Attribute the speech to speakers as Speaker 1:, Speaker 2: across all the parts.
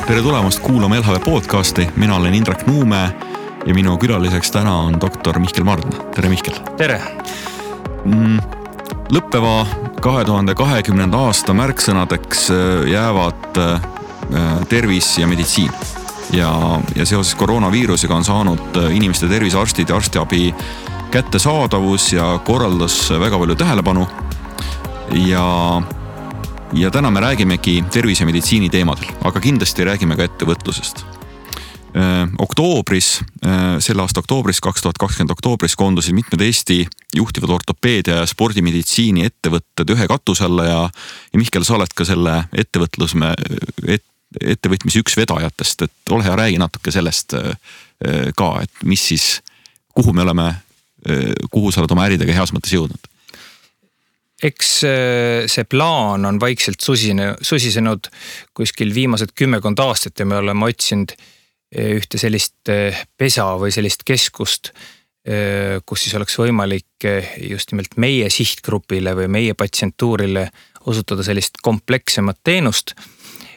Speaker 1: Tere tulemast kuulama LHV podcasti, mina olen Indrek Nuumäe ja minu külaliseks täna on doktor Mihkel Mardna. Tere Mihkel!
Speaker 2: Tere!
Speaker 1: Lõppeva 2020. aasta märksõnadeks jäävad tervis ja meditsiin. Ja seoses koroonaviirusega on saanud inimeste tervisearstid ja arstiabi kättesaadavus ja korraldas väga palju tähelepanu. Ja täna me räägimegi tervise ja meditsiini teemadel, aga kindlasti räägime ka ettevõtlusest. Selle aasta oktoobris, 2020 oktoobris koondusid mitmed Eesti juhtivad ortopeedia ja spordimeditsiini ettevõtted ühe katuse alla ja Mihkel, sa oled ka selle ettevõtmise üks vedajatest, et ole hea, räägi natuke sellest ka, et mis siis, kuhu sa oled oma äridega heas mõttes jõudnud?
Speaker 2: Eks see plaan on vaikselt susisenud kuskil viimased 10 aastat ja me oleme otsinud ühte sellist pesa või sellist keskust, kus siis oleks võimalik just nimelt meie sihtgrupile või meie patsientuurile osutada sellist komplekssemat teenust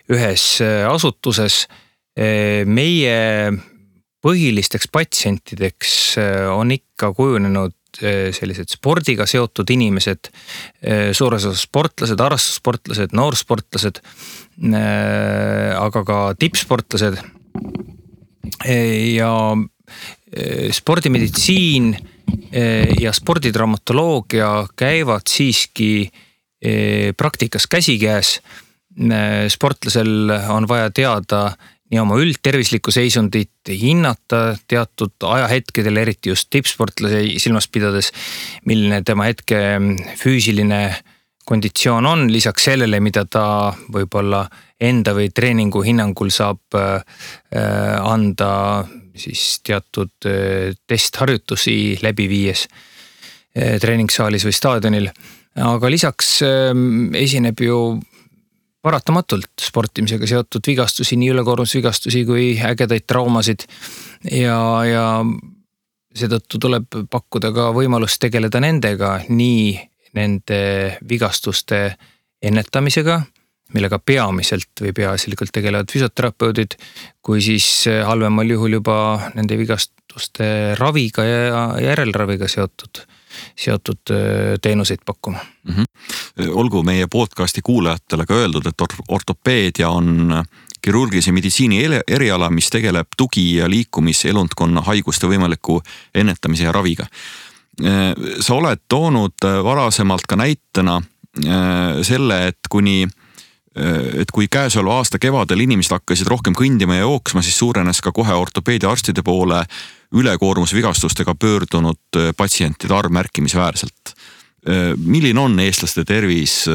Speaker 2: ühes asutuses. Meie põhilisteks patsientideks on ikka kujunenud sellised spordiga seotud inimesed, suures osas sportlased, harrastussportlased, noorsportlased, aga ka tippsportlased ja spordimeditsiin ja sporditraumatoloogia käivad siiski praktikas käsikäes. Sportlasel on vaja teada nii oma üldtervislikku seisundit, hinnata teatud ajahetkedel, eriti just tippsportlase silmas pidades, milline tema hetke füüsiline konditsioon on, lisaks sellele, mida ta võib-olla enda või treeningu hinnangul saab anda siis teatud testharjutusi läbi viies treeningsaalis või staadionil. Aga lisaks esineb ju paratamatult sportimisega seotud vigastusi, nii ülekoormusvigastusi kui ägedaid traumasid ja seetõttu tuleb pakkuda ka võimalust tegeleda nendega, nii nende vigastuste ennetamisega, millega peamiselt või peaasjalikult tegelevad füsioterapeudid, kui siis halvemal juhul juba nende vigastuste raviga ja järelraviga seotud teenuseid pakkuma.
Speaker 1: Olgu meie podcasti kuulajatele ka öeldud, et ortopeedia on kirurgilise meditsiini eriala, mis tegeleb tugi- ja liikumiselundkonna haiguste võimaliku ennetamise ja raviga. Sa oled toonud varasemalt ka näitena selle, et kui käesoleva aasta kevadel inimesed hakkasid rohkem kõndima ja jooksma, siis suurenes ka kohe ortopeedia arstide poole ülekoormusvigastustega pöördunud patsientide arv märkimisväärselt. Milline on eestlaste tervis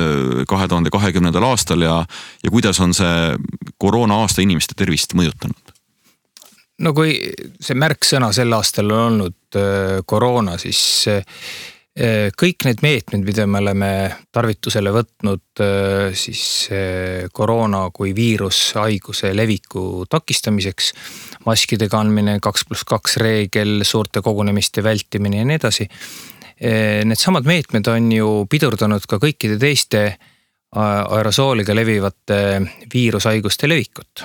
Speaker 1: 2020. aastal ja kuidas on see koroona aasta inimeste tervist mõjutanud?
Speaker 2: No kui see märksõna sel aastal on olnud koroona, siis kõik need meetmed, mida me oleme tarvitusele võtnud siis koroona kui viirushaiguse leviku takistamiseks, maskide kandmine, 2+2 reegel, suurte kogunemiste vältimine ja nii edasi. Need samad meetmed on ju pidurdanud ka kõikide teiste aerosooliga levivate viirushaiguste levikut.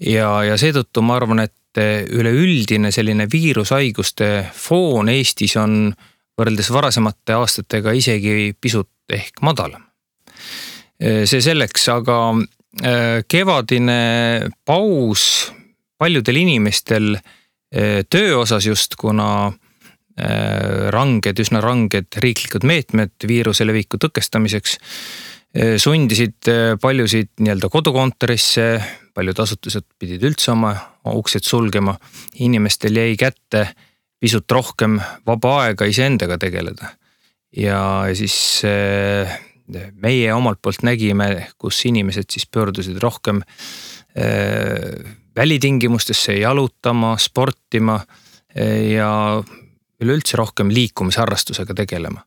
Speaker 2: Ja seetõttu ma arvan, et üleüldine selline viirushaiguste foon Eestis on võrreldes varasemate aastatega isegi pisut ehk madalam. See selleks, aga kevadine paus paljudel inimestel töö osas just, kuna üsna ranged riiklikud meetmed viiruse leviku tõkestamiseks sundisid paljusid nii-öelda kodukontorisse, paljud asutused pidid üldse oma uksed sulgema, inimestel jäi kätte pisut rohkem vaba aega iseendaga tegeleda. Ja siis meie omalt poolt nägime, kus inimesed siis pöördusid rohkem välitingimustesse jalutama, sportima ja üleüldse rohkem liikumisharrastusega tegelema.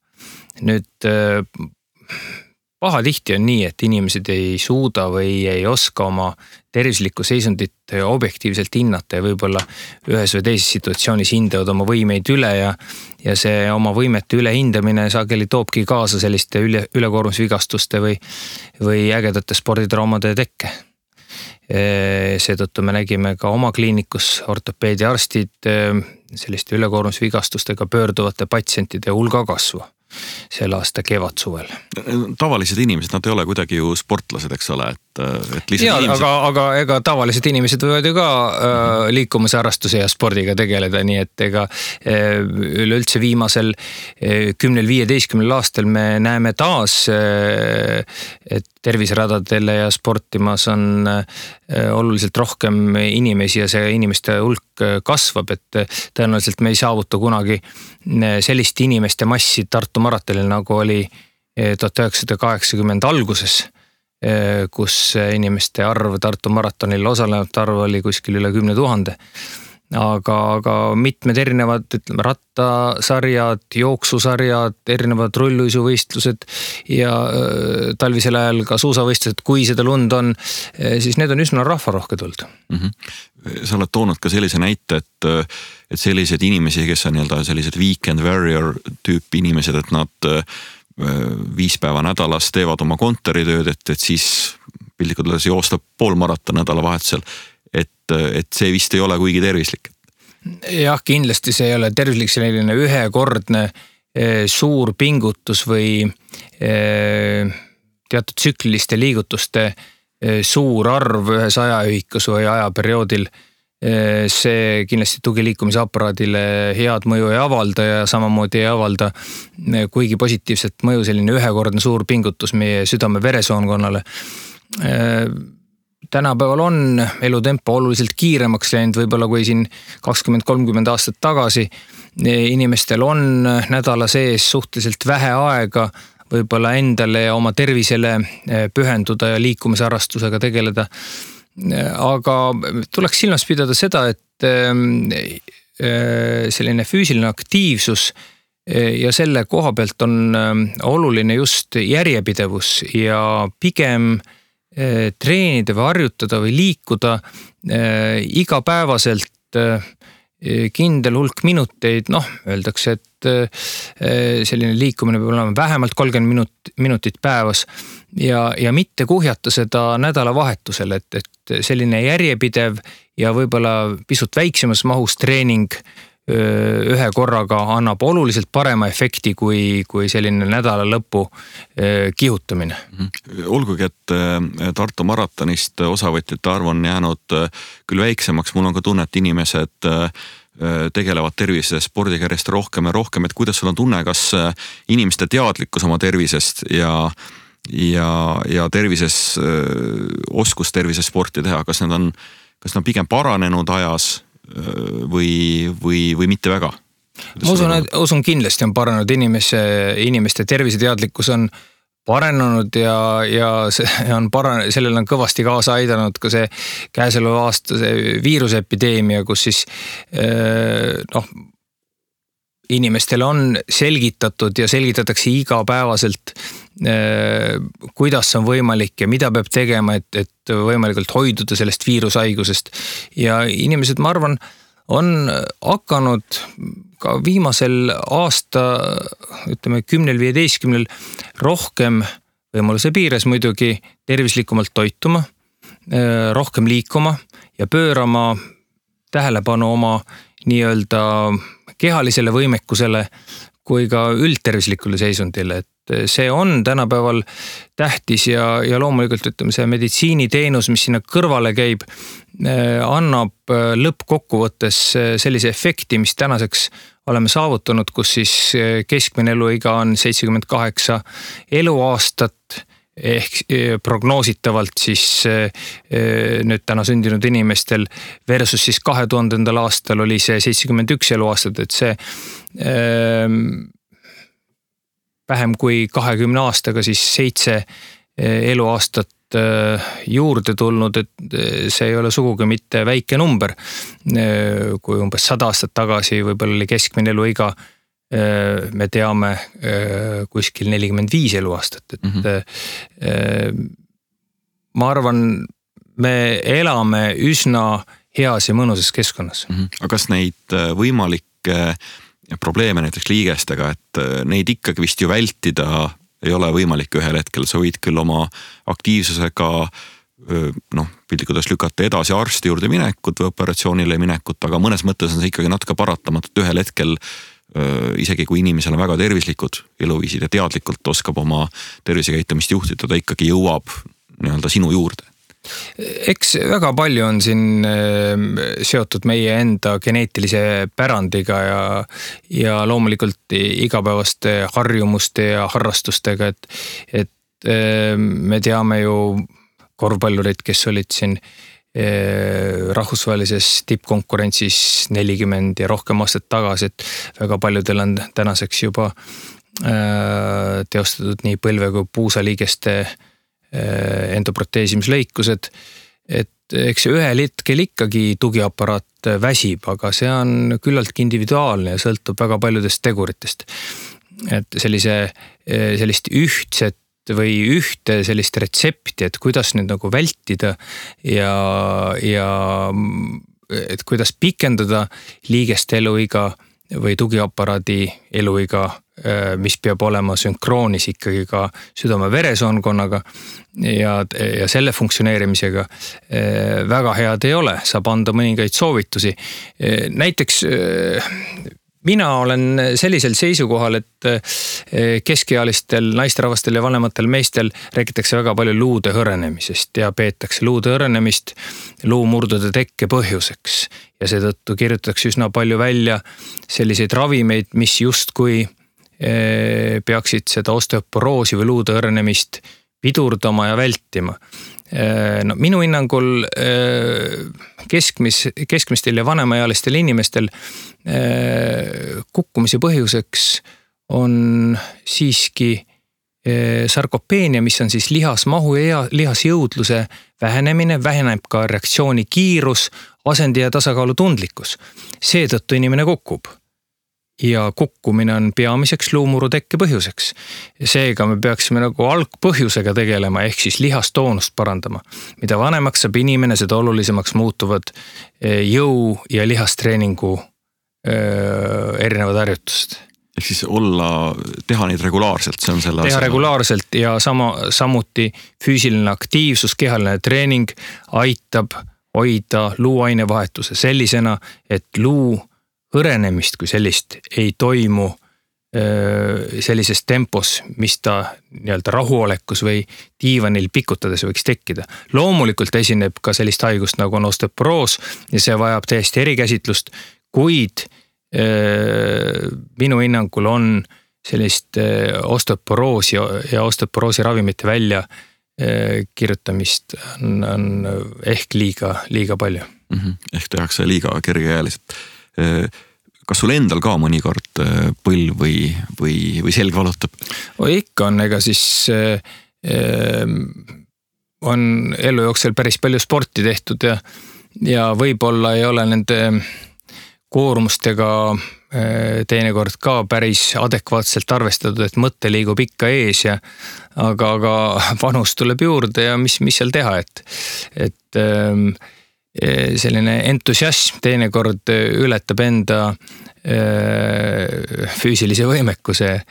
Speaker 2: Nüüd pahatihti on nii, et inimesed ei suuda või ei oska oma tervislikku seisundit objektiivselt hinnata ja võib-olla ühes või teises situatsioonis hindavad oma võimeid üle ja see oma võimete ülehindamine sageli toobki kaasa selliste ülekoormusvigastuste või ägedate sporditraumade tekke. Seetõttu me nägime ka oma kliinikus ortopeediarstid selliste ülekoormusvigastustega pöörduvate patsientide hulga kasvu selle aasta kevadsuvel.
Speaker 1: Tavalised inimesed, nad ei ole kuidagi ju sportlased, eks ole, et lihtsalt
Speaker 2: ja,
Speaker 1: inimesed...
Speaker 2: aga ega tavalised inimesed võivad ju ka liikumise harrastuse ja spordiga tegeleda, nii et ega üleüldse viimasel 10-15 aastal me näeme taas, et terviseradadele ja sportimas on oluliselt rohkem inimesi ja see inimeste hulk kasvab, et tõenäoliselt me ei saavuta kunagi sellist inimeste massi Tartu maratonil, nagu oli 1980 alguses, kus inimeste arv Tartu maratonil osalenud arv oli kuskil üle 10 000. Aga mitmed erinevad, ütleme, rattasarjad, jooksusarjad, erinevad rulluisuvõistlused ja talvisel ajal ka suusavõistlused, kui seda lund on, siis need on üsna rahvarohked olnud.
Speaker 1: Sa oled toonud ka sellise näite, et sellised inimesi, kes on sellised weekend warrior tüüp inimesed, et nad 5 päeva nädalas teevad oma kontoritööd, et siis piltlikult öeldes joosta poolmaraton nädalavahetusel. Et see vist ei ole kuigi tervislik.
Speaker 2: Jah, kindlasti see ei ole tervislik, selline ühekordne suur pingutus või teatud tsükliliste liigutuste suur arv ühes ajaühikus või ajaperioodil. See kindlasti tugiliikumisaparaadile head mõju ei avalda ja samamoodi ei avalda kuigi positiivset mõju selline ühekordne suur pingutus meie südame-veresoonkonnale. Tänapäeval on elutempo oluliselt kiiremaks läinud, võib-olla kui siin 20-30 aastat tagasi. Inimestel on nädala sees suhteliselt vähe aega võib-olla endale ja oma tervisele pühenduda ja liikumisharrastusega tegeleda. Aga tuleks silmas pidada seda, et selline füüsiline aktiivsus ja selle koha pealt on oluline just järjepidevus ja pigem treenida või harjutada või liikuda igapäevaselt kindel hulk minuteid, öeldakse, et selline liikumine peab olema vähemalt 30 minutit päevas ja mitte kuhjata seda nädalavahetusel, et selline järjepidev ja võib-olla pisut väiksemas mahus treening ühe korraga annab oluliselt parema efekti kui selline nädala lõpu kihutamine.
Speaker 1: Olgugi, et Tartu maratonist osavõtjate arv on jäänud küll väiksemaks, mul on ka tunne, et inimesed tegelevad tervise spordiga järjest rohkem ja rohkem, et kuidas sul on tunne, kas inimeste teadlikkus oma tervisest ja tervises, oskus tervises sporti teha, kas need on pigem paranenud ajas või mitte väga?
Speaker 2: Ma usun kindlasti on paranenud inimeste terviseteadlikkus on paranenud ja sellel on kõvasti kaasa aidanud ka see käesoleva aasta see viiruseepideemia, kus siis inimestele on selgitatud ja selgitatakse igapäevaselt, kuidas on võimalik ja mida peab tegema, et võimalikult hoiduda sellest viirushaigusest. Ja inimesed, ma arvan, on hakanud ka viimasel aasta, ütleme 10-15 rohkem võimaluse piires muidugi tervislikumalt toituma, rohkem liikuma ja pöörama tähelepanu oma nii-öelda kehalisele võimekusele kui ka üldtervislikule seisundile, et see on tänapäeval tähtis ja loomulikult ütleme see meditsiiniteenus, mis sinna kõrvale käib, annab lõppkokkuvõttes sellise efekti, mis tänaseks oleme saavutanud, kus siis keskmine eluiga on 78 eluaastat ehk prognoositavalt siis nüüd täna sündinud inimestel versus siis 2000. aastal oli see 71 eluaastat, et see vähem kui 20 aastaga siis 7 eluaastat juurde tulnud, et see ei ole sugugi mitte väike number. Kui umbes 100 aastat tagasi võib-olla oli keskmine eluiga, me teame kuskil 45 eluaastat, et ma arvan, me elame üsna heas ja mõnusas keskkonnas.
Speaker 1: Aga kas neid võimalikke probleeme näiteks liigestega, et neid ikkagi vist ju vältida ei ole võimalik ühel hetkel, sa võid küll oma aktiivsusega piltlikult lükata edasi arsti juurde minekut või operatsioonile minekut, aga mõnes mõttes on see ikkagi natuke paratamatult ühel hetkel, isegi kui inimesel on väga tervislikud eluviisid ja teadlikult oskab oma tervisekäitumist juhtida, ta ikkagi jõuab nii-öelda sinu juurde.
Speaker 2: Eks väga palju on siin seotud meie enda geneetilise pärandiga ja loomulikult igapäevaste harjumuste ja harrastustega, et me teame ju korvpallurid, kes olid siin rahvusvahelises tippkonkurentsis 40 ja rohkem aastat tagasi, et väga paljudel on tänaseks juba teostatud nii põlve kui puusaliigeste endoproteesimislõikused, et eks ühel hetkel ikkagi tugiaparaat väsib, aga see on küllaltki individuaalne ja sõltub väga paljudest teguritest. Et sellist ühtset või ühte sellist retsepti, et kuidas nüüd nagu vältida ja et kuidas pikendada liigeste eluiga või tugiaparaadi eluiga, mis peab olema sünkroonis ikkagi ka südame-veresoonkonnaga ja selle funktsioneerimisega väga head ei ole, saab anda mõningaid soovitusi. Näiteks mina olen sellisel seisukohal, et keskealistel naisterahvastel ja vanematel meestel räägitakse väga palju luude hõrenemisest ja peetakse luude hõrenemist luumurdude tekke põhjuseks. Ja seetõttu kirjutatakse üsna palju välja selliseid ravimeid, mis justkui peaksid seda osteoporoosi või luude hõrenemist pidurdama ja vältima. No, minu hinnangul keskmistel ja vanemaealistel inimestel kukkumise põhjuseks on siiski sarkopeenia, mis on siis lihasmahu ja lihasjõudluse vähenemine, väheneb ka reaktsiooni kiirus, asendi ja tasakaalu tundlikkus. Seetõttu inimene kukub. Ja kukkumine on peamiseks luumuru tekke põhjuseks. Seega me peaksime nagu algpõhjusega tegelema, ehk siis lihastoonust parandama. Mida vanemaks saab inimene, seda olulisemaks muutuvad jõu- ja lihastreeningu erinevad harjutused.
Speaker 1: Ehk siis teha neid regulaarselt, see on selle
Speaker 2: teha regulaarselt ja samuti füüsiline aktiivsus, kehaline treening aitab hoida luuainevahetuse sellisena, et luu hõrenemist kui sellist ei toimu sellises tempos, mis ta nii-öelda rahuolekus või diivanil pikutades võiks tekkida. Loomulikult esineb ka sellist haigust nagu on osteoporoos ja see vajab täiesti erikäsitlust, kuid minu hinnangul on sellist osteoporoosi ja osteoporoosi ravimite välja kirjutamist on ehk liiga palju.
Speaker 1: Ehk tehakse liiga kergekäeliselt. Kas sul endal ka mõnikord põlv või selg valutab?
Speaker 2: Ikka on, ega siis on elu jooksul päris palju sporti tehtud ja võib-olla ei ole nende koormustega teinekord ka päris adekvaatselt arvestatud, et mõte liigub ikka ees aga vanus tuleb juurde ja mis seal teha, et selline entusiasm teinekord ületab enda füüsilise võimekuse,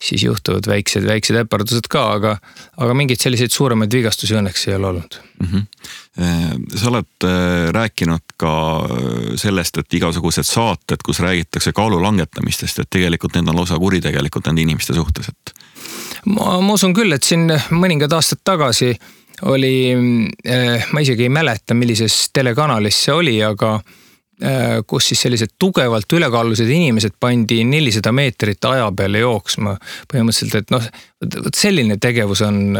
Speaker 2: siis juhtuvad väiksed äpardused ka, aga mingeid selliseid suuremaid vigastusi õnneks ei ole olnud.
Speaker 1: Sa oled rääkinud ka sellest, et igasugused saated, kus räägitakse kaalu langetamistest, et tegelikult need on lausa kuritegelikult nende inimeste suhtes.
Speaker 2: Ma usun küll, et siin mõningad aastad tagasi oli, ma isegi ei mäleta, millises telekanalis see oli, aga kus siis sellised tugevalt ülekaalulised inimesed pandi 400 meetrit aja peale jooksma. Põhimõtteliselt, et selline tegevus on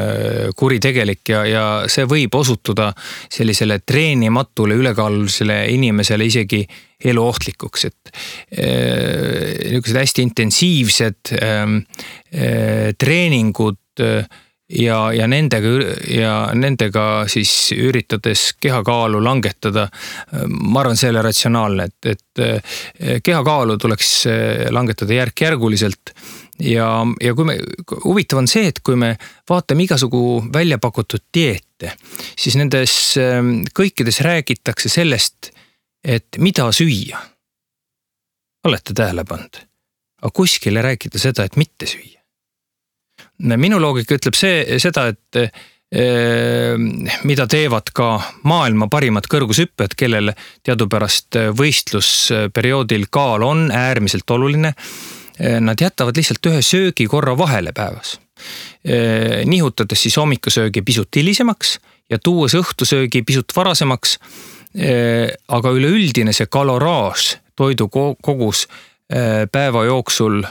Speaker 2: kuritegelik ja see võib osutuda sellisele treenimatule ülekaalulisele inimesele isegi eluohtlikuks, et niisugused hästi intensiivsed treeningud ja nendega siis üritades kehakaalu langetada, ma arvan, see ei ole ratsionaalne, et kehakaalu tuleks langetada järk-järguliselt ja huvitav on see, et kui me vaatame igasugu välja pakutud dieete, siis nendes kõikides räägitakse sellest, et mida süüa. Olete tähele pannud? Aga kuskil ei räägita seda, et mitte süüa. Minu loogika ütleb seda, mida teevad ka maailma parimad kõrgushüpped, kellel teadupärast võistlusperioodil kaal on äärmiselt oluline. Nad jätavad lihtsalt ühe söögi korra vahele päevas. Nihutades siis hommikusöögi pisut hilisemaks ja tuues õhtusöögi pisut varasemaks, aga üleüldine see kaloraaž, toidu kogus päeva jooksul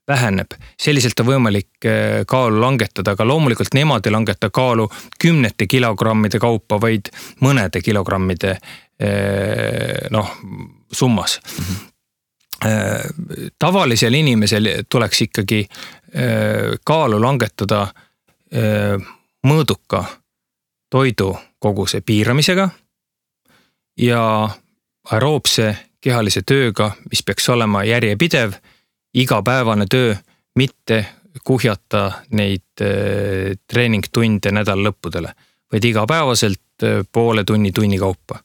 Speaker 2: väheneb. Selliselt on võimalik kaalu langetada, aga loomulikult nemad ei langeta kaalu 10 kilogrammide kaupa, vaid mõnede kilogrammide summas. Tavalisel inimesel tuleks ikkagi kaalu langetada mõõduka toidu koguse piiramisega ja aeroobse kehalise tööga, mis peaks olema järjepidev, igapäevane töö, mitte kuhjata neid treeningtunde nädal lõppudele, vaid igapäevaselt poole tunni kaupa.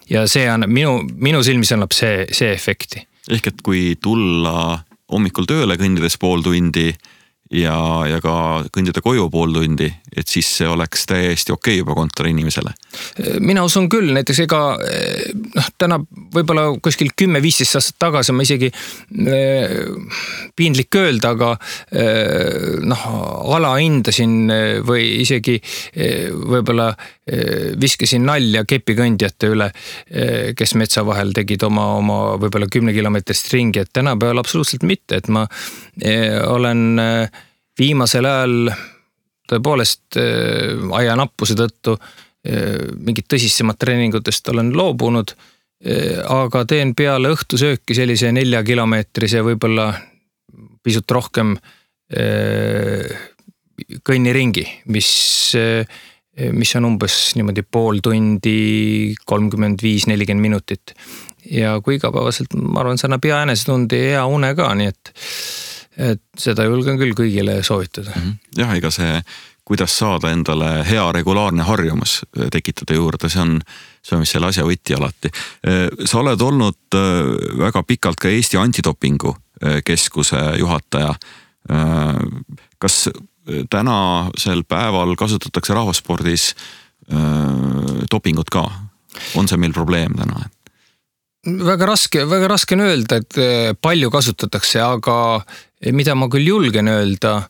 Speaker 2: Ja see on minu silmis annab see efekti.
Speaker 1: Ehk et kui tulla hommikul tööle kõndides pool tundi ja ka kõndida koju pool tundi, et siis see oleks täiesti okei juba kontoriinimesele.
Speaker 2: Mina usun küll, näiteks täna võib-olla kuskil 10-15 aastat tagasi ma isegi piinlik öelda, aga alahindasin või isegi võib-olla viskasin nalja kepikõndjate üle, kes metsa vahel tegid oma võib-olla 10 kilomeetrist ringi, et tänapäeval absoluutselt mitte, et ma olen viimasel ajal tõepoolest ajanappuse tõttu mingit tõsisemat treeningutest olen loobunud, aga teen peale õhtusööki sellise 4-kilomeetrise võib-olla pisut rohkem kõnniringi, mis on umbes niimoodi pool tundi, 35-40 minutit. Ja kui igapäevaselt, ma arvan, see annab hea enesetundi ja hea une ka, nii et seda julgen küll kõigile soovitada.
Speaker 1: Jah, ega see, kuidas saada endale hea regulaarne harjumus tekitada juurde, see on mis selle asja võti alati. Sa oled olnud väga pikalt ka Eesti antidopingu keskuse juhataja. Kas tänasel päeval kasutatakse rahvaspordis dopingut ka? On see meil probleem täna?
Speaker 2: Väga raske on öelda, et palju kasutatakse, aga mida ma küll julgen öelda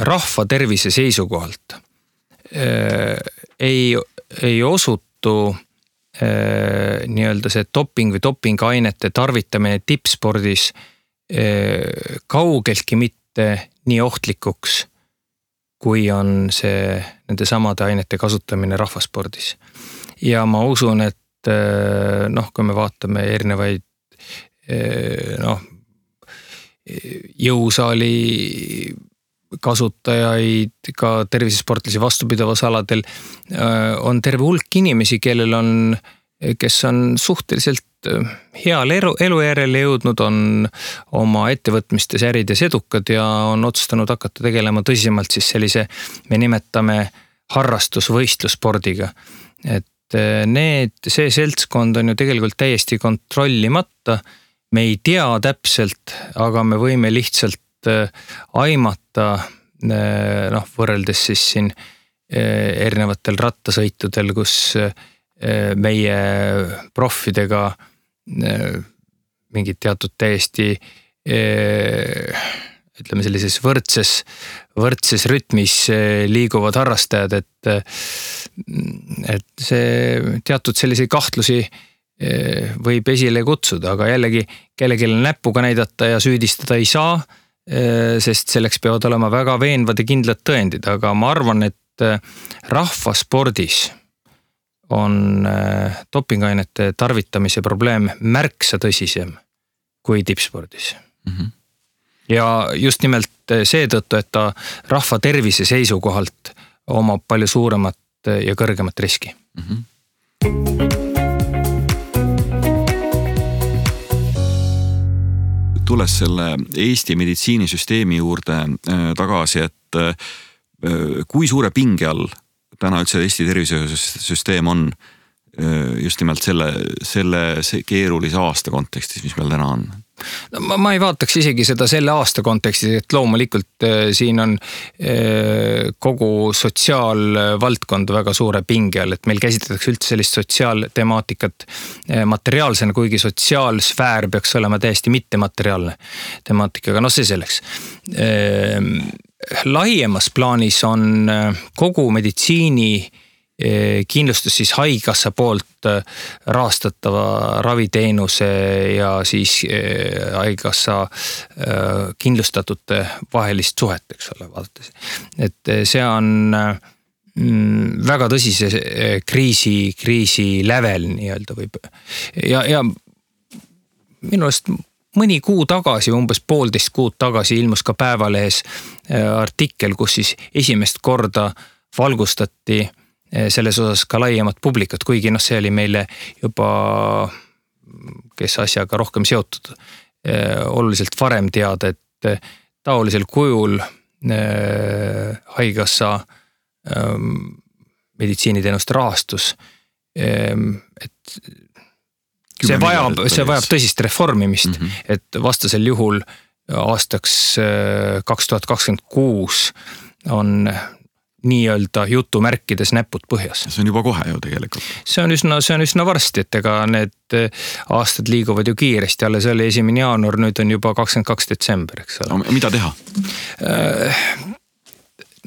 Speaker 2: rahva tervise seisukohalt ei osutu nii-öelda see doping või dopingainete tarvitamine tippspordis kaugeltki mitte nii ohtlikuks, kui on see nende samade ainete kasutamine rahvaspordis. Ja ma usun, et kui me vaatame erinevaid jõusaali kasutajaid, ka tervisesportlasi vastupidavas aladel, on terve hulk inimesi, kes on suhteliselt heal elujärjele jõudnud, on oma ettevõtmistes ärides edukad ja on otsustanud hakata tegelema tõsisemalt siis sellise, me nimetame harrastusvõistlusspordiga. Et see seltskond on ju tegelikult täiesti kontrollimata, me ei tea täpselt, aga me võime lihtsalt aimata, võrreldes siis siin erinevatel rattasõitudel, kus meie proffidega mingid teatud täiesti ütleme sellises võrdses rütmis liiguvad harrastajad, et see teatud selliseid kahtlusi võib esile kutsuda, aga jällegi kellelegi näpuga näidata ja süüdistada ei saa, sest selleks peavad olema väga veenvad ja kindlad tõendid, aga ma arvan, et rahvaspordis on dopingainete tarvitamise probleem märksa tõsisem kui tippspordis. Ja just nimelt seetõttu, et ta rahva tervise seisukohalt omab palju suuremat ja kõrgemat riski.
Speaker 1: Tulles selle Eesti meditsiinisüsteemi juurde tagasi, et kui suure pinge all täna üldse Eesti tervisesüsteem on just nimelt selle keerulise aasta kontekstis, mis meil täna on?
Speaker 2: No, ma ei vaataks isegi seda selle aasta kontekstis, et loomulikult siin on kogu sotsiaalvaldkond väga suure pinge all, et meil käsitletakse üldse sellist sotsiaaltemaatikat materiaalsena, kuigi sotsiaalsfäär peaks olema täiesti mittemateriaalne temaatikaga, no see selleks. Laiemas plaanis on kogu meditsiini kindlustus siis haigekassa poolt rahastatava raviteenuse ja siis haigekassa kindlustatute vahelist suhet, eks ole, vaadates. Et see on väga tõsise kriisi lävel nii-öelda võib. Ja minu arust mõni kuu tagasi, umbes 1,5 kuud tagasi ilmus ka Päevalehes artikkel, kus siis esimest korda valgustati selles osas ka laiemat publikat, kuigi see oli meile juba, kes asjaga rohkem seotud, oluliselt varem teada, et taolisel kujul haigekassa meditsiiniteenuste rahastus, et see vajab tõsist reformimist, et vastasel juhul aastaks 2026 on nii-öelda jutumärkides näpud põhjas.
Speaker 1: See on juba kohe ju tegelikult.
Speaker 2: See on üsna varsti, et ega need aastad liiguvad ju kiiresti, alles oli 1. jaanuar, nüüd on juba 22. detsember, eks ole.
Speaker 1: No, mida teha?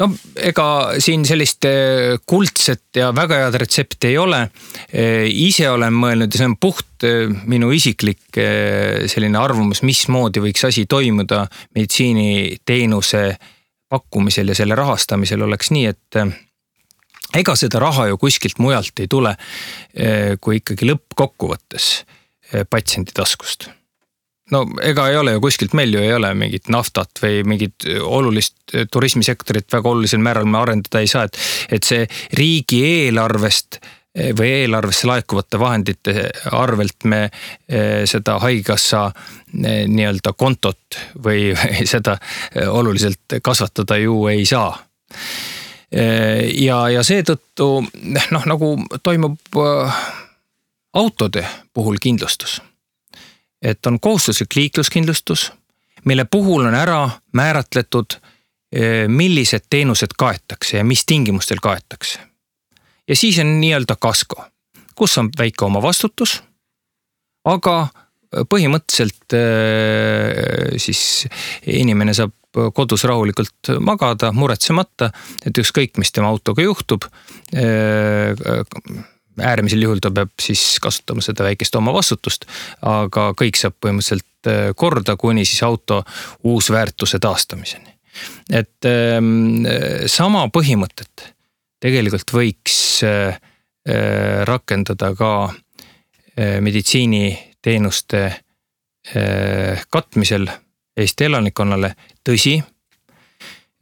Speaker 2: No ega siin sellist kuldset ja väga head retsepti ei ole. Ise olen mõelnud ja see on puht minu isiklik selline arvamus, mismoodi võiks asi toimuda meditsiiniteenuse pakkumisel ja selle rahastamisel oleks nii, et ega seda raha ju kuskilt mujalt ei tule, kui ikkagi lõppkokkuvõttes patsiendi taskust. No ega ei ole ju kuskilt, meil ju ei ole mingit naftat või mingit olulist turismisektorit väga olulisel määral me arendada ei saa, et see riigi eelarvest või eelarvesse laekuvate vahendite arvelt me seda haigekassa nii-öelda kontot või seda oluliselt kasvatada ju ei saa. Ja seetõttu nagu toimub autode puhul kindlustus. Et on kohustuslik liikluskindlustus, mille puhul on ära määratletud, millised teenused kaetakse ja mis tingimustel kaetakse. Ja siis on nii-öelda kasko, kus on väike oma vastutus, aga põhimõtteliselt siis inimene saab kodus rahulikult magada, muretsemata, et ükskõik, mis tema autoga juhtub, äärmisel juhul ta peab siis kasutama seda väikest oma vastutust, aga kõik saab põhimõtteliselt korda, kuni siis auto uusväärtuse taastamiseni. Et sama põhimõtet tegelikult võiks rakendada ka meditsiiniteenuste katmisel Eesti elanikkonnale. Tõsi,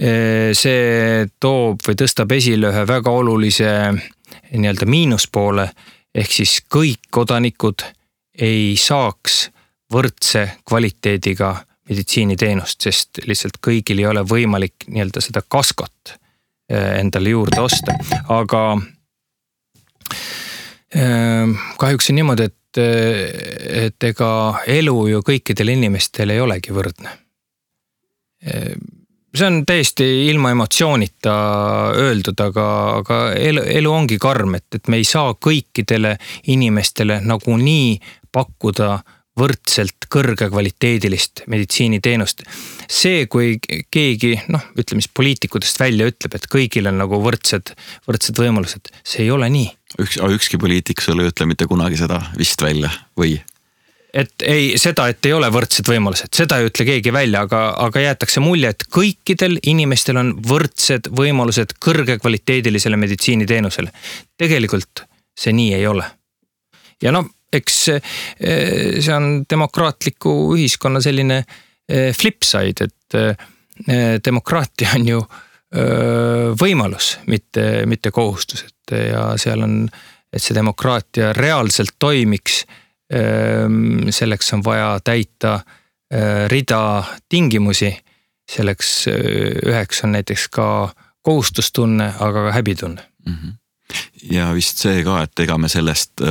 Speaker 2: see toob või tõstab esile ühe väga olulise nii-öelda miinuspoole, ehk siis kõik kodanikud ei saaks võrdse kvaliteediga meditsiiniteenust, sest lihtsalt kõigil ei ole võimalik nii-öelda seda kaskot endale juurde osta, aga kahjuks on niimoodi, et ega elu ju kõikidel inimestel ei olegi võrdne. See on täiesti ilma emotsioonita öeldud, aga elu ongi karm, et me ei saa kõikidele inimestele nagu nii pakkuda võrdselt kõrge kvaliteedilist meditsiiniteenust. See, kui keegi, ütleme siis poliitikutest välja ütleb, et kõigil on nagu võrdsed võimalused, see ei ole nii.
Speaker 1: Ükski poliitik sulle ütle mitte kunagi seda vist välja või?
Speaker 2: Et ei ole võrdsed võimalused, seda ei ütle keegi välja, aga jäetakse mulje, et kõikidel inimestel on võrdsed võimalused kõrge kvaliteedilisele meditsiiniteenusele. Tegelikult see nii ei ole. Ja eks see on demokraatliku ühiskonna selline flipside, et demokraatia on ju võimalus, mitte kohustus, ja seal on, et see demokraatia reaalselt toimiks, selleks on vaja täita rida tingimusi, selleks üheks on näiteks ka kohustustunne, aga ka häbitunne.
Speaker 1: Ja vist see ka, et ega me sellest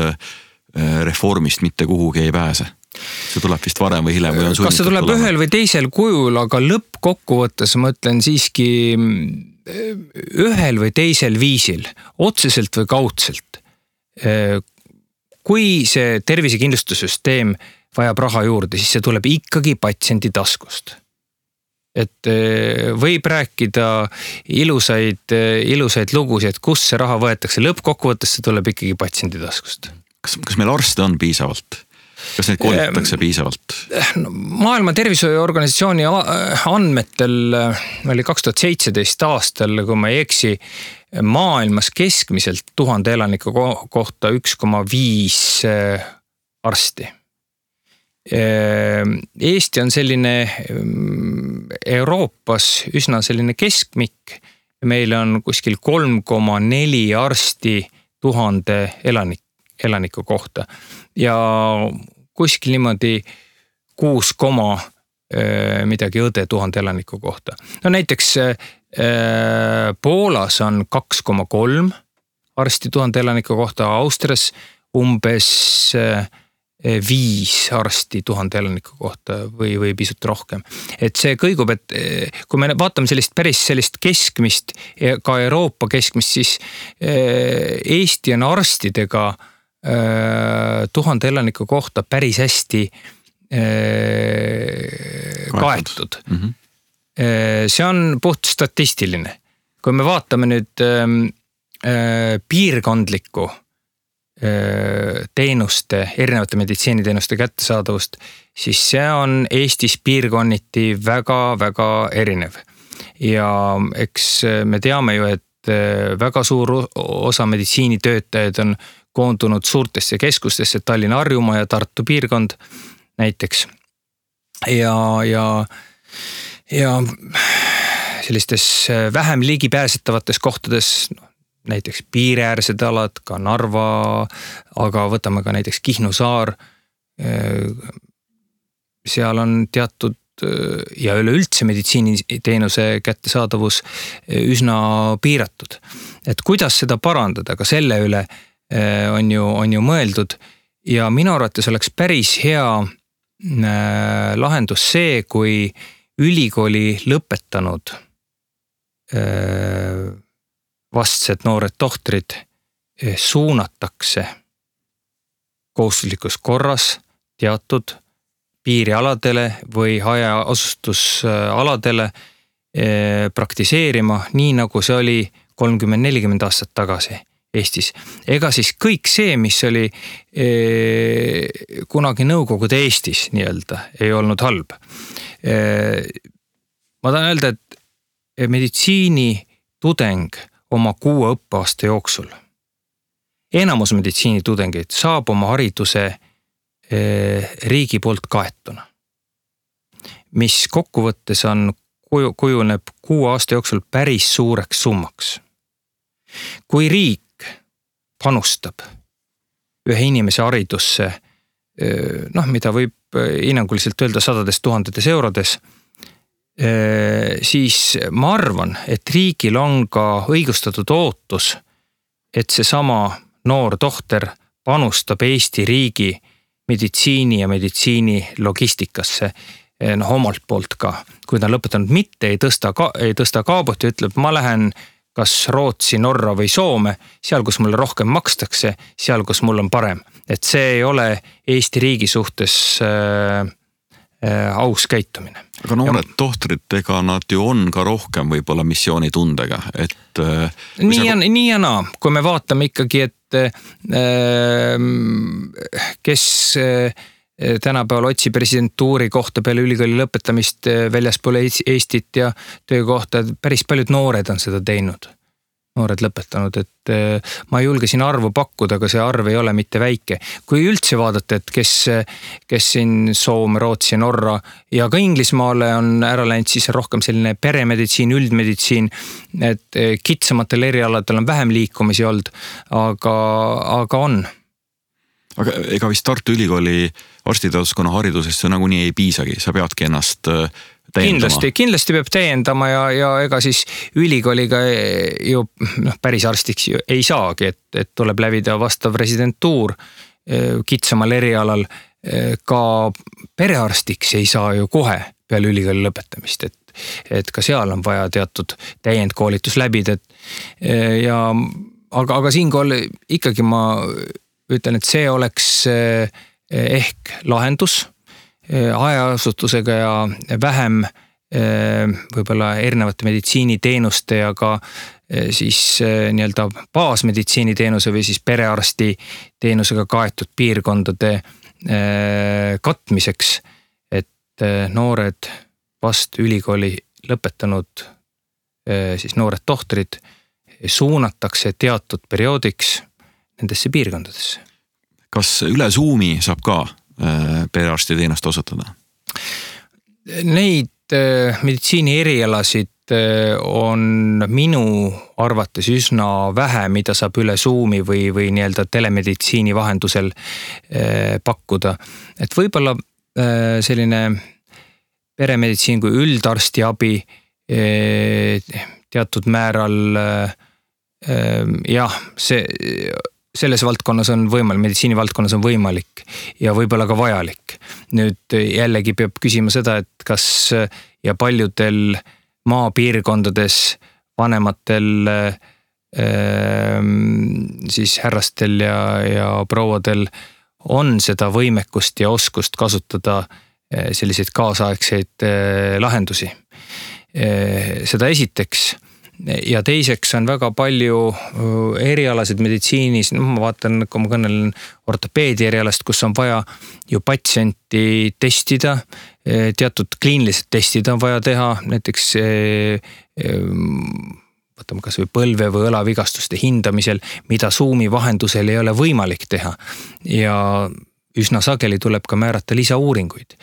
Speaker 1: reformist mitte kuhugi ei pääse. see tuleb vist varem või hiljem või on sunnitud
Speaker 2: kas see tuleb tulema? Ühel või teisel kujul, aga lõppkokkuvõttes ma ütlen siiski ühel või teisel viisil, otseselt või kaudselt. Kui see tervisekindlustussüsteem vajab raha juurde, siis see tuleb ikkagi patsiendi taskust. Et võib rääkida ilusaid lugusid, et kus see raha võetakse. Lõppkokkuvõttes see tuleb ikkagi patsiendi taskust.
Speaker 1: Kas meil arste on piisavalt? Kas neid koolitatakse piisavalt?
Speaker 2: Maailma Tervishoiuorganisatsiooni andmetel oli 2017 aastal, kui ma ei eksi, maailmas keskmiselt 1000 elaniku kohta 1,5 arsti. Eesti on selline Euroopas üsna selline keskmik. Meil on kuskil 3,4 arsti 1000 elaniku kohta ja kuskil niimoodi 6, midagi õde 1000 elaniku kohta. No näiteks Poolas on 2,3 arsti 1000 elaniku kohta, Austrias umbes 5 arsti 1000 elaniku kohta või pisut rohkem. Et see kõigub, et kui me vaatame sellist keskmist, ka Euroopa keskmist, siis Eesti on arstidega 1000 elaniku kohta päris hästi kaetud. Mm-hmm. See on puht statistiline. Kui me vaatame nüüd piirkondlikku teenuste, erinevate meditsiiniteenuste kättesaadavust, siis see on Eestis piirkonniti väga-väga erinev. Ja eks me teame ju, et väga suur osa meditsiinitöötajaid on koondunud suurtesse keskustesse, Tallinna, Harjumaa ja Tartu piirkond näiteks. Ja sellistes vähem ligipääsetavates kohtades, näiteks piiriäärsed alad, ka Narva, aga võtame ka näiteks Kihnu saar. Seal on teatud ja üleüldse meditsiiniteenuse kättesaadavus üsna piiratud. Et kuidas seda parandada, ka selle üle on ju mõeldud ja minu arvates oleks päris hea lahendus see, kui ülikooli lõpetanud vastsed noored tohtrid suunatakse kohustuslikus korras teatud piirialadele või hajaasustusaladele praktiseerima, nii nagu see oli 30-40 aastat tagasi Eestis. Ega siis kõik see, mis oli kunagi Nõukogude Eestis nii-öelda, ei olnud halb. Ma tahan öelda, et meditsiini tudeng oma 6 õppeaasta jooksul. Enamus meditsiinitudengeid saab oma hariduse riigi poolt kaetuna, mis kokkuvõttes kujuneb 6 aasta jooksul päris suureks summaks. Kui riik panustab ühe inimese haridusse, mida võib hinnanguliselt öelda 100 000 eurodes, siis ma arvan, et riigil on ka õigustatud ootus, et see sama noor tohter panustab Eesti riigi meditsiini ja meditsiini logistikasse omalt poolt ka. Kui ta on lõpetanud mitte, ei tõsta kaabut ja ütleb, ma lähen kas Rootsi, Norra või Soome, seal, kus mulle rohkem makstakse, seal, kus mul on parem. Et see ei ole Eesti riigi suhtes aus käitumine.
Speaker 1: Aga noored tohtrid, ega nad ju on ka rohkem võib-olla missioonitundega, et
Speaker 2: nii ja naa, kui me vaatame ikkagi, et kes tänapäeval otsi presidentuuri kohta peale ülikooli lõpetamist väljaspool Eestit ja töökohta, päris paljud noored on seda teinud. Noored lõpetanud, et ma ei julge siin arvu pakkuda, aga see arv ei ole mitte väike. Kui üldse vaadata, et kes siin Soome, Rootsi, Norra ja ka Inglismaale on ära läinud, siis rohkem selline peremeditsiin, üldmeditsiin, et kitsamatel erialadel on vähem liikumisi olnud, aga on.
Speaker 1: Aga ega vist Tartu Ülikooli arstiteaduskonna haridusesse nagunii ei piisagi, sa peadki ennast täiendama.
Speaker 2: Kindlasti peab täiendama ja ega siis ülikooliga ju päris arstiks ei saagi, et tuleb läbida vastav residentuur kitsamal erialal. ka perearstiks ei saa ju kohe peale ülikooli lõpetamist, et ka seal on vaja teatud täiendkoolitus läbida. Aga siinkohal ikkagi ma ütlen, et see oleks ehk lahendus hajaasutusega ja vähem võib-olla erinevate meditsiiniteenuste ja ka siis nii-öelda baasmeditsiiniteenuse või siis perearsti teenusega kaetud piirkondade katmiseks, et noored vast ülikooli lõpetanud siis noored tohtrid suunatakse teatud perioodiks nendesse piirkondadesse.
Speaker 1: Kas üle Zoomi saab ka perearsti teenust osutada?
Speaker 2: Neid meditsiini erialasid on minu arvates üsna vähe, mida saab üle Zoomi või nii-öelda telemeditsiini vahendusel pakkuda. Et võib-olla selline peremeditsiin kui üldarsti abi teatud määral selles valdkonnas on võimalik, meditsiini valdkonnas on võimalik ja võib-olla ka vajalik. Nüüd jällegi peab küsima seda, et kas ja paljudel maapiirkondades vanematel siis härrastel ja prouadel on seda võimekust ja oskust kasutada selliseid kaasaegseid lahendusi. Seda esiteks. Ja teiseks on väga palju erialasid meditsiinis, ma vaatan, kui ma kõnelen ortopeedi erialast, kus on vaja ju patsienti testida, teatud kliinilised testid on vaja teha, näiteks võtame kas või põlve või õlavigastuste hindamisel, mida Zoomi vahendusel ei ole võimalik teha ja üsna sageli tuleb ka määrata lisauuringuid.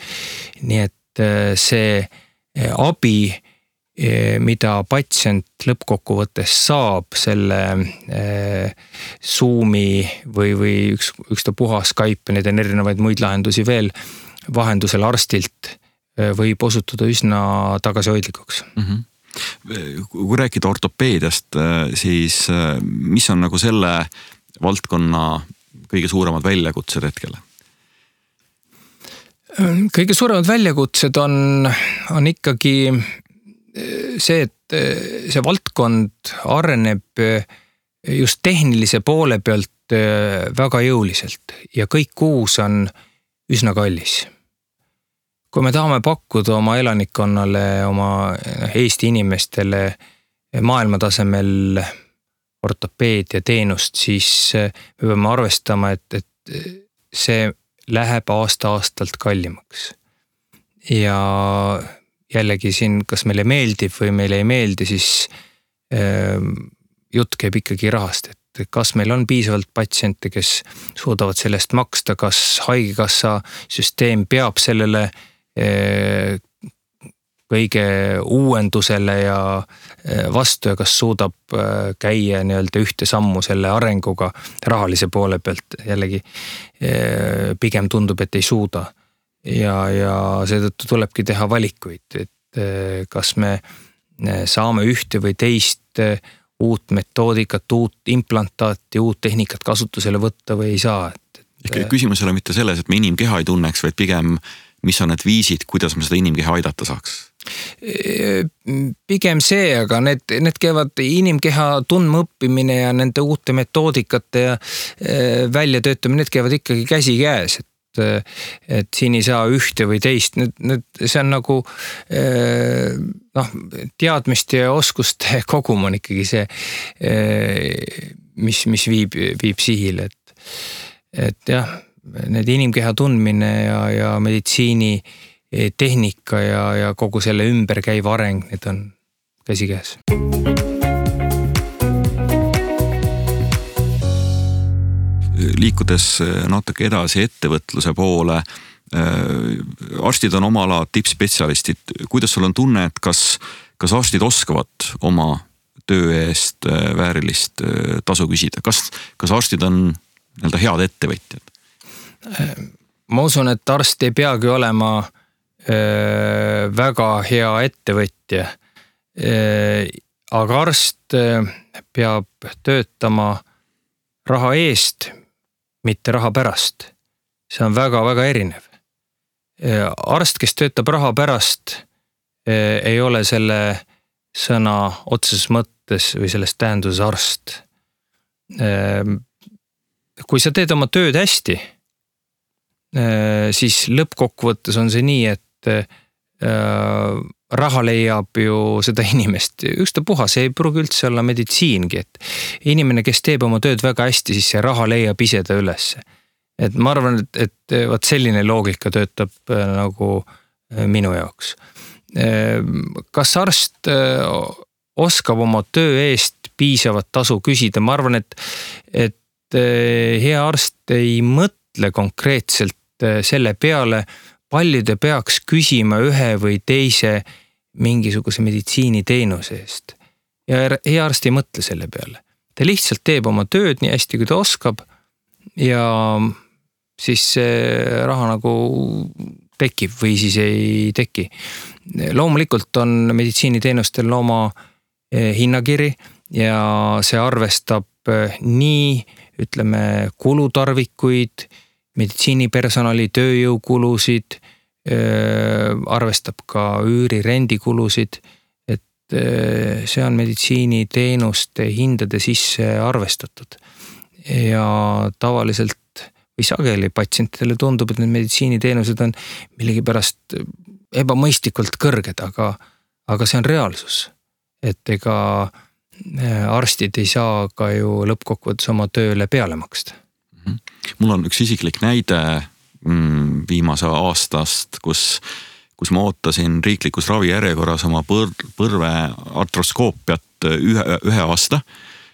Speaker 2: Nii et see abi, mida patsient lõppkokkuvõttes saab selle Zoomi või ükstapuha Skype, need on erinevaid muid lahendusi veel vahendusel arstilt, võib osutuda üsna tagasihoidlikuks.
Speaker 1: Kui rääkida ortopeediast, siis mis on nagu selle valdkonna kõige suuremad väljakutsed hetkel?
Speaker 2: Kõige suuremad väljakutsed on ikkagi see, et see valdkond areneb just tehnilise poole pealt väga jõuliselt ja kõik uus on üsna kallis. Kui me tahame pakkuda oma elanikkonnale, oma Eesti inimestele maailmatasemel ortopeedia teenust, siis me peame arvestama, et see läheb aasta-aastalt kallimaks. Ja jällegi siin, kas meile meeldib või meile ei meeldi, siis jutt käib ikkagi rahast, et kas meil on piisavalt patsiente, kes suudavad sellest maksta, kas haigekassa süsteem peab sellele kõige uuendusele ja vastu ja kas suudab käia nii-öelda ühte sammu selle arenguga rahalise poole pealt. Jällegi pigem tundub, et ei suuda. Ja seetõttu tulebki teha valikuid, et kas me saame ühte või teist uut metoodikat, uut implantaati, uut tehnikat kasutusele võtta või ei saa.
Speaker 1: Küsimus ei ole mitte selles, et me inimkeha ei tunneks, vaid pigem mis on need viisid, kuidas me seda inimkeha aidata saaks?
Speaker 2: Pigem see, aga need käivad inimkeha tundma õppimine ja nende uute metoodikate ja väljatöötamine, need käivad ikkagi käsi käes, et siin ei saa ühte või teist, see on nagu teadmiste ja oskuste kogum on ikkagi see, mis viib sihile, et jah, need inimkeha tundmine ja meditsiini tehnika ja kogu selle ümber käiva areng, need on käsikäes.
Speaker 1: Liikudes natuke edasi ettevõtluse poole, arstid on oma ala tippspetsialistid. Kuidas sul on tunne, et kas arstid oskavad oma töö eest väärilist tasu küsida? Kas arstid on nii-öelda head ettevõtjad?
Speaker 2: Ma usun, et arst ei peagi olema väga hea ettevõtja, aga arst peab töötama raha eest, mitte raha pärast. see on väga-väga erinev. Arst, kes töötab raha pärast, ei ole selle sõna otseses mõttes või selles tähenduses arst. Kui sa teed oma tööd hästi, siis lõppkokkuvõttes on see nii, et raha leiab ju seda inimest. Ükstapuha, see ei pruugi üldse olla meditsiingi, et inimene, kes teeb oma tööd väga hästi, siis see raha leiab ise ta üles. Et ma arvan, et vaat selline loogika töötab nagu minu jaoks. Kas arst oskab oma töö eest piisavat tasu küsida? Ma arvan, et hea arst ei mõtle konkreetselt selle peale, palju ta peaks küsima ühe või teise mingisuguse meditsiiniteenuse eest. Ja hea arst ei mõtle selle peale. Ta lihtsalt teeb oma tööd nii hästi, kui ta oskab ja siis see raha nagu tekib või siis ei teki. Loomulikult on meditsiiniteenustel oma hinnakiri ja see arvestab nii, ütleme, kulutarvikuid, meditsiinipersonali tööjõukulusid, arvestab ka üüri rendikulusid, et see on meditsiiniteenuste hindade sisse arvestatud. Ja tavaliselt või sageli patsientidele tundub, et need meditsiiniteenused on millegipärast ebamõistlikult kõrged, aga see on reaalsus. Et ega arstid ei saa ka ju lõppkokkuvõttes oma tööle peale maksta.
Speaker 1: Mul on üks isiklik näide viimase aastast, kus ma ootasin riiklikus ravijärjekorras oma põrve artroskoopiat ühe aasta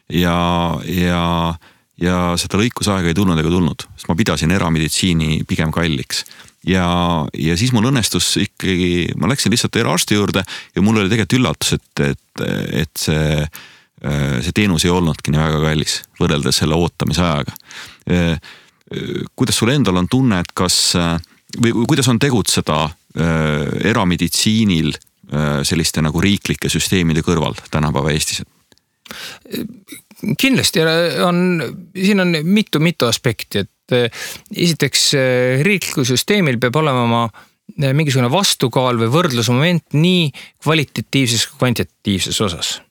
Speaker 1: ja seda lõikusaega ei tulnud ega tulnud, sest ma pidasin erameditsiini pigem kalliks. Ja siis mul õnnestus ikkagi, ma läksin lihtsalt eraarsti juurde ja mul oli tegelikult üllatus, et see teenus ei olnudki nii väga kallis võrreldes selle ootamise ajaga. Kuidas sul endal on tunne, et või kuidas on tegutseda erameditsiinil selliste nagu riiklike süsteemide kõrval tänapäeva Eestis?
Speaker 2: Kindlasti siin on mitu aspekti, et esiteks riiklikul süsteemil peab olema mingisugune vastukaal või võrdlusmoment nii kvalitatiivses kui kvantitatiivses osas.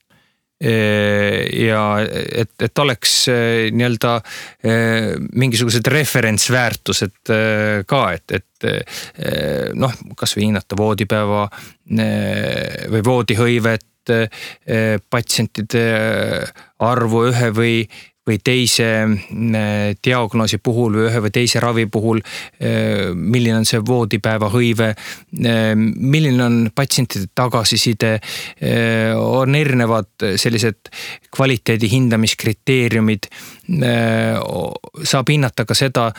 Speaker 2: Ja et oleks nii-öelda mingisugused referentsväärtused ka, et noh, kas või hinnata voodipäeva või voodihõivet, patsientide arvu ühe või teise diagnoosi puhul või ühe või teise ravi puhul, milline on see voodipäeva hõive, milline on patsientide tagasiside, on erinevad sellised kvaliteedi hindamiskriteeriumid, saab hinnata ka seda,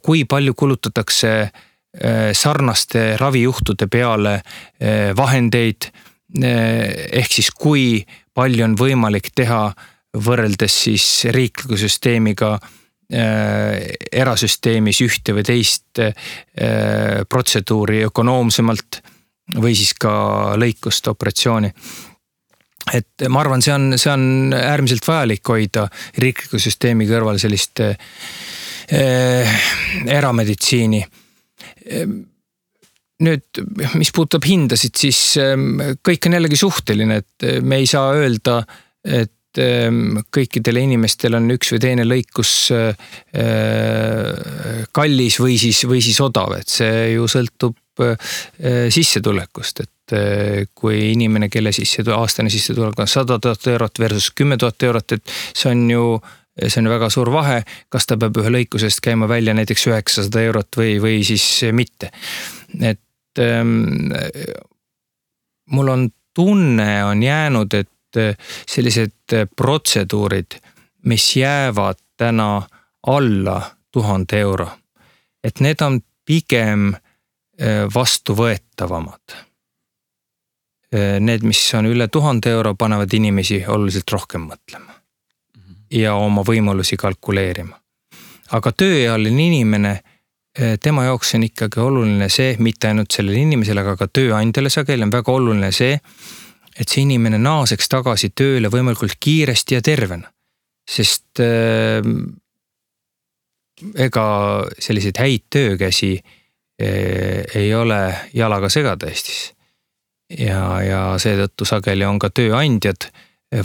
Speaker 2: kui palju kulutatakse sarnaste ravijuhtude peale vahendeid, ehk siis kui palju on võimalik teha võrreldes siis riikliku süsteemiga erasüsteemis ühte või teist protseduuri ökonoomsemalt või siis ka lõikust operatsiooni. Et ma arvan, see on äärmiselt vajalik hoida riikliku süsteemi kõrval sellist erameditsiini. Nüüd, mis puudutab hindasid, siis kõik on jällegi suhteline, et me ei saa öelda, et kõikidele inimestel on üks või teine lõikus kallis või siis odav, et see ju sõltub sissetulekust, et kui inimene, kelle aastane sissetulek on 100 000 eurot versus 10 000 eurot, et see on ju väga suur vahe, kas ta peab ühe lõikusest käima välja näiteks 900 eurot või siis mitte. Et mul on tunne on jäänud, et sellised protseduurid, mis jäävad täna alla 1000 euro, et need on pigem vastuvõetavamad. Need, mis on üle 1000 euro, panevad inimesi oluliselt rohkem mõtlema ja oma võimalusi kalkuleerima. Aga tööealine inimene, tema jaoks on ikkagi oluline see, mitte ainult sellele inimesele, aga ka tööandjale sageli on väga oluline see, et see inimene naaseks tagasi tööle võimalikult kiiresti ja tervena. Sest ega selliseid häid töökäsi ei ole jalaga segada Eestis. Ja seetõttu sageli on ka tööandjad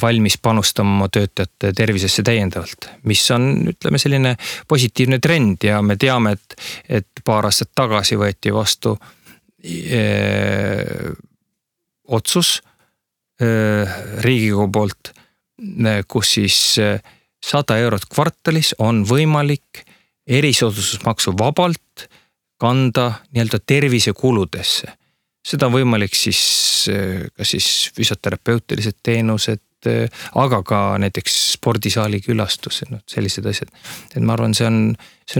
Speaker 2: valmis panustama oma töötajate tervisesse täiendavalt, mis on, ütleme, selline positiivne trend ja me teame, et paar aastat tagasi võeti vastu otsus Riigikogu poolt, kus siis 100 eurot kvartalis on võimalik erisoodustusmaksu vabalt kanda nii-öelda tervisekuludesse. Seda on võimalik siis füsioterapeutilised teenused, aga ka näiteks spordisaali külastus, sellised asjad. Et ma arvan, see on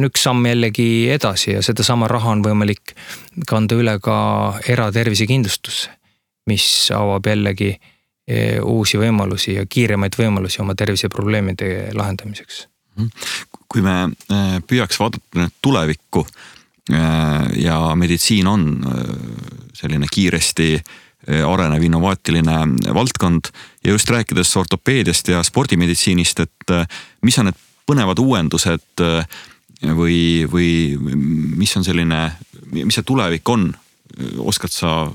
Speaker 2: üks samm jällegi edasi ja seda sama raha on võimalik kanda üle ka eratervisekindlustusse, mis avab jällegi uusi võimalusi ja kiiremaid võimalusi oma terviseprobleemide lahendamiseks.
Speaker 1: Kui me püüaks vaadata tulevikku ja meditsiin on selline kiiresti arenev innovaatiline valdkond ja just rääkides ortopeediast ja spordimeditsiinist, et mis on need põnevad uuendused või mis on selline, mis see tulevik on? Oskad sa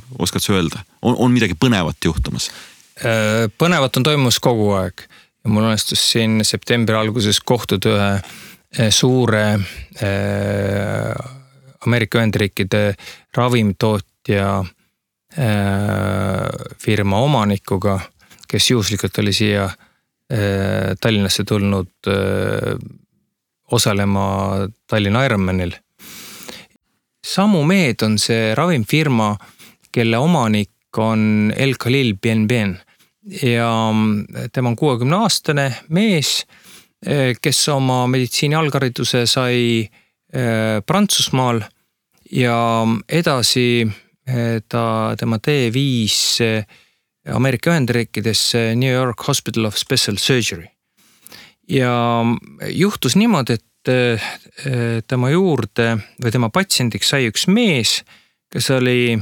Speaker 1: öelda? On midagi põnevat juhtumas?
Speaker 2: Põnevat on toimus kogu aeg ja mul õnnestus siin septembri alguses kohtuda ühe suure Ameerika Ühendriikide ravimtootja firma omanikuga, kes juhuslikult oli siia Tallinnasse tulnud osalema Tallinna Ironmanil. Samu Med on see ravimfirma, kelle omanik on El Khalil Ben ja tema on 60-aastane mees, kes oma meditsiini alghariduse sai Prantsusmaal ja edasi tema tee viis Ameerika Ühendriikidesse New York Hospital of Special Surgery. Ja juhtus niimoodi, et tema juurde või tema patsiendiks sai üks mees, kes oli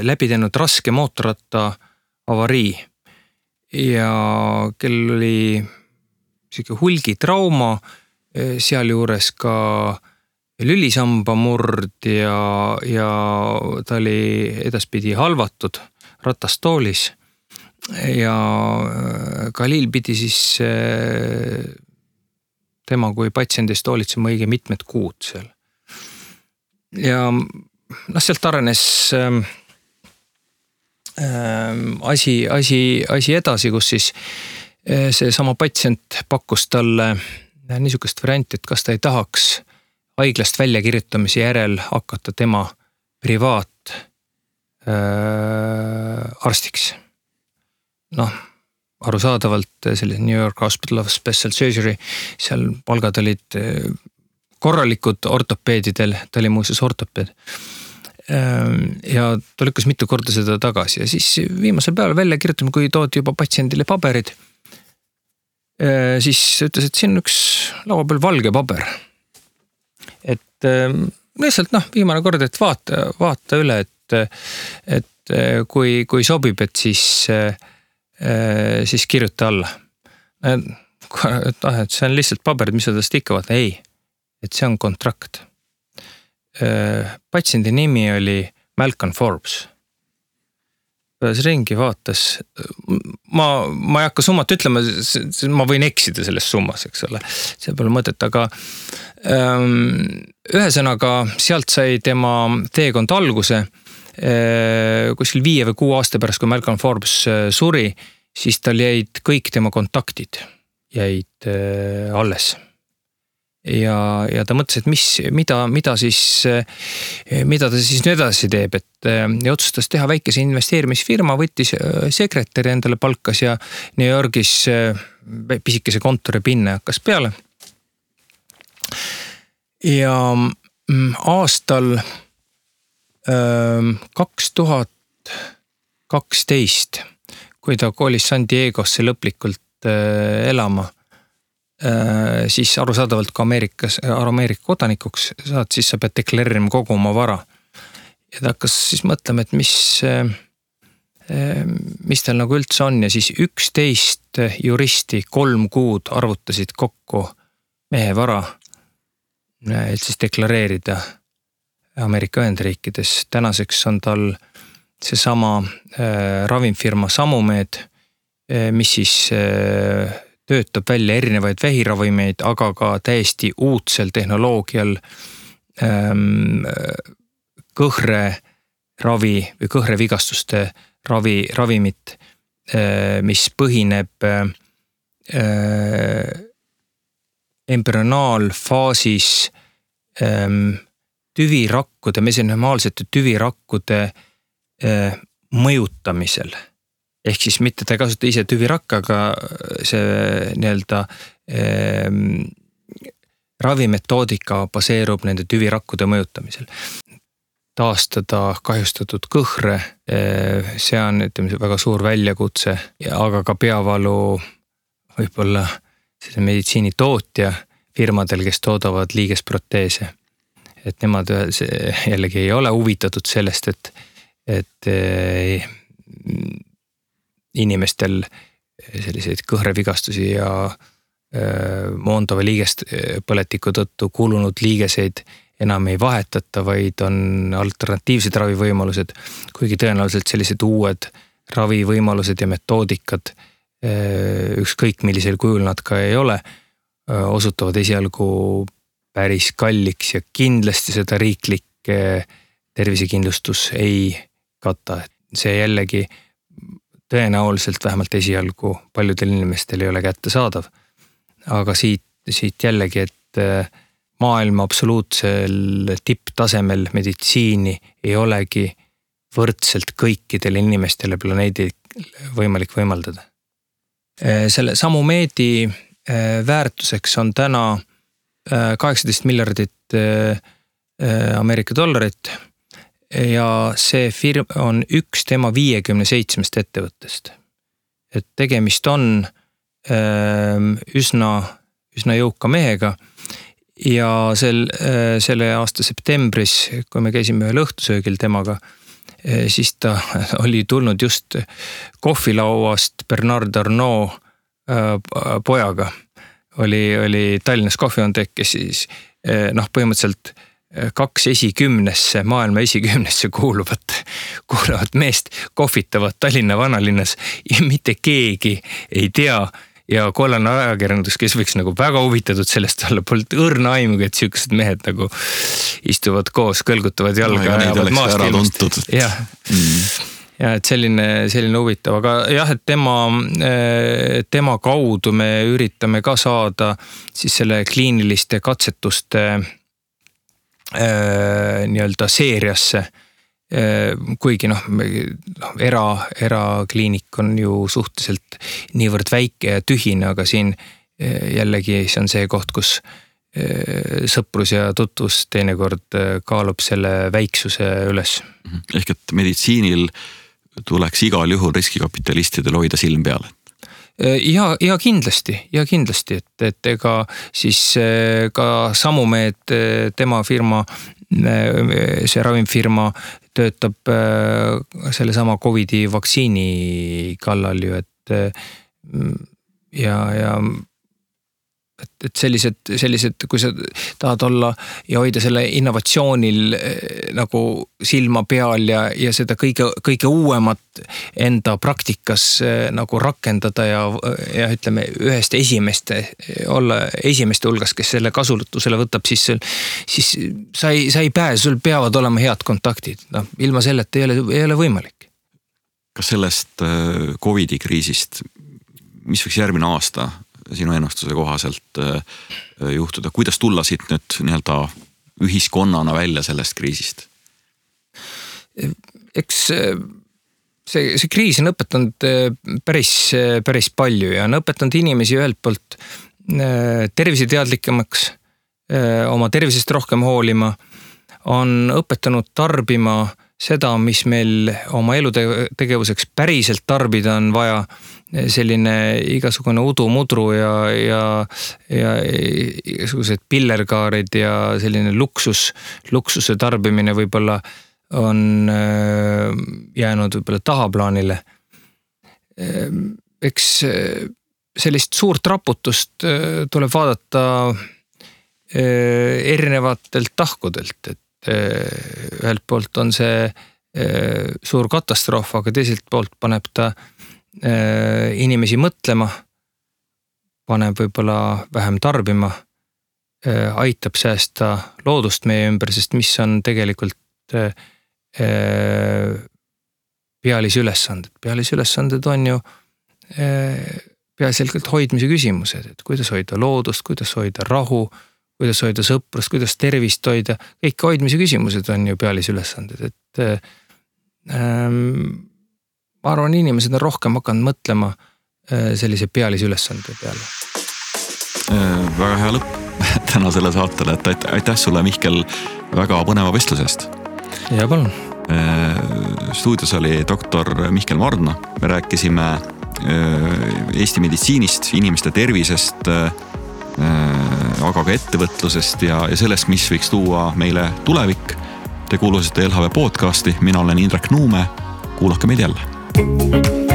Speaker 2: läbi teinud raske mootorratta avarii ja kel oli hulgitrauma, sealjuures ka lülisamba murd ja ta oli edaspidi halvatud ratastoolis ja Khalil pidi siis tema kui patsiendist hoolitsema õige mitmed kuud seal. Ja sealt arenes asi edasi, kus siis see sama patsient pakkus talle niisugust varianti, et kas ta ei tahaks haiglast väljakirjutamise järel hakata tema privaat arstiks. Arusaadavalt selline New York Hospital of Special Surgery, seal palgad olid korralikud ortopeedidel, ta oli muuseas ortopeed. Ja ta lükkas mitu korda seda tagasi ja siis viimasel päeval välja kirjutame, kui toodi juba patsiendile paberid, siis ütles, et siin on üks laua peal valge paber. Et lihtsalt viimane kord, et vaata üle, et kui sobib, et siis kirjuta alla. Et see on lihtsalt paberid, mis sa tast ikka vaata. Ei, et see on kontrakt. Patsiendi nimi oli Malcolm Forbes. Pääs ringi vaatas. Ma ei hakka summat ütlema, ma võin eksida selles summas, eks ole. See pole mõtet, aga ühesõnaga sealt sai tema teekond alguse. Kuskil 5 või 6 aasta pärast, kui Malcolm Forbes suri, siis tal jäid kõik tema kontaktid jäid alles. Ja ta mõtles, et mida ta siis nüüd edasi teeb, ja otsustas teha väikese investeerimisfirma, võttis sekretäri endale palkas ja New Yorgis pisikese kontori pinne hakkas peale. Ja aastal 2012, kui ta koolis San Diegosse lõplikult elama, siis arusaadavalt ka Ameerika kodanikuks saad, siis sa pead deklareerima kogu oma vara. Ja ta hakkas siis mõtlema, et mis tal nagu üldse on ja siis 11 juristi 3 kuud arvutasid kokku mehe vara, et siis deklareerida Ameerika Ühendriikides. Tänaseks on tal seesama ravimfirma Samumed, mis siis töötab välja erinevaid vähiravimeid, aga ka täiesti uudsel tehnoloogial kõhreravi või kõhrevigastuste ravimit, mis põhineb embrüonaalfaasis tüvirakkude, mesenümaalsete tüvirakkude mõjutamisel. Ehk siis mitte ta ei kasuta ise tüvirakka, aga see nii-öelda ravimetoodika baseerub nende tüvirakkude mõjutamisel. Taastada kahjustatud kõhre, see on väga suur väljakutse, aga ka peavalu võib-olla selle meditsiinitootja firmadel, kes toodavad liigesproteese. Et nemad jällegi ei ole huvitatud sellest, et inimestel selliseid kõhrevigastusi ja moondava liigest põletiku tõttu kulunud liigeseid enam ei vahetata, vaid on alternatiivsed ravivõimalused, kuigi tõenäoliselt sellised uued ravivõimalused ja metoodikad, ükskõik millisel kujul nad ka ei ole, osutuvad esialgu päris kalliks ja kindlasti seda riiklik tervisekindlustus ei kata. See jällegi tõenäoliselt vähemalt esialgu paljudel inimestel ei ole kättesaadav. Aga siit jällegi, et maailma absoluutsel tipptasemel meditsiini ei olegi võrdselt kõikidele inimestele planeedil võimalik võimaldada. Selle Samumeedi väärtuseks on täna 18 miljardit Ameerika dollarit ja see firma on üks tema 57 ettevõttest. Et tegemist on üsna jõuka mehega ja selle aasta septembris, kui me käisime ühel õhtusöögil temaga, siis ta oli tulnud just kohvilauast Bernard Arnault pojaga. Oli Tallinnas kohviontek, kes siis põhimõtteliselt 2 esikümnesse, maailma esikümnesse kuuluvat meest kohvitavad Tallinna vanalinnas ja mitte keegi ei tea ja kollane ajakirjandus, kes võiks nagu väga huvitatud sellest olla, polnud õrna aimugi, et sellised mehed nagu istuvad koos, kõlgutavad jalga
Speaker 1: ja neid oleks ära tuntud.
Speaker 2: Ja et selline huvitav, aga jah, et tema kaudu me üritame ka saada siis selle kliiniliste katsetuste nii-öelda seeriasse, kuigi erakliinik on ju suhteliselt niivõrd väike ja tühine, aga siin jällegi see on see koht, kus sõprus ja tutvus teinekord kaalub selle väiksuse üles.
Speaker 1: Ehk et meditsiinil tuleks igal juhul riskikapitalistidel hoida silm peale.
Speaker 2: Ja kindlasti, et ega siis ka Samumed, tema firma, see ravimfirma töötab selle sama COVID-i vaktsiini kallal ju, et sellised, kui sa tahad olla ja hoida selle innovatsioonil nagu silma peal ja seda kõige uuemat enda praktikas nagu rakendada ja ütleme ühest olla esimeste hulgas, kes selle kasutusele võtab, siis sa ei pääse, sul peavad olema head kontaktid. Ilma selleta ei ole võimalik.
Speaker 1: Kas sellest COVID-i kriisist, mis võiks järgmine aasta sinu ennustuse kohaselt juhtuda, kuidas tulla siit nüüd nii-öelda ühiskonnana välja sellest kriisist? Eks see kriis on õpetanud päris palju ja on õpetanud inimesi ühelt poolt terviseteadlikemaks, oma tervisest rohkem hoolima, on õpetanud tarbima seda, mis meil oma elutegevuseks päriselt tarbida on vaja, selline igasugune udumudru ja igasugused pillerkaarid ja selline luksuse tarbimine võib-olla on jäänud võib-olla tahaplaanile. Eks sellist suurt raputust tuleb vaadata
Speaker 2: erinevatelt tahkudelt, et ühelt poolt on see suur katastroof, aga teiselt poolt paneb ta inimesi mõtlema, paneb võib-olla vähem tarbima, aitab säästa loodust meie ümber, sest mis on tegelikult pealisülesanded. Pealisülesanded on ju peaasjalikult hoidmise küsimused, et kuidas hoida loodust, kuidas hoida rahu, kuidas hoida sõprust, kuidas tervist hoida. Kõik hoidmise küsimused on ju pealisülesanded, et ma arvan, inimesed on rohkem hakanud mõtlema sellise pealisülesande peale.
Speaker 1: Väga hea lõpp tänasele saatele, et aitäh sulle, Mihkel, väga põneva vestlusest.
Speaker 2: Ja palun.
Speaker 1: Stuudios oli doktor Mihkel Mardna. Me rääkisime Eesti meditsiinist, inimeste tervisest, aga ka ettevõtlusest ja sellest, mis võiks tuua meile tulevik. Te kuulusite LHV podcasti, mina olen Indrek Nuume, kuulake meid jälle.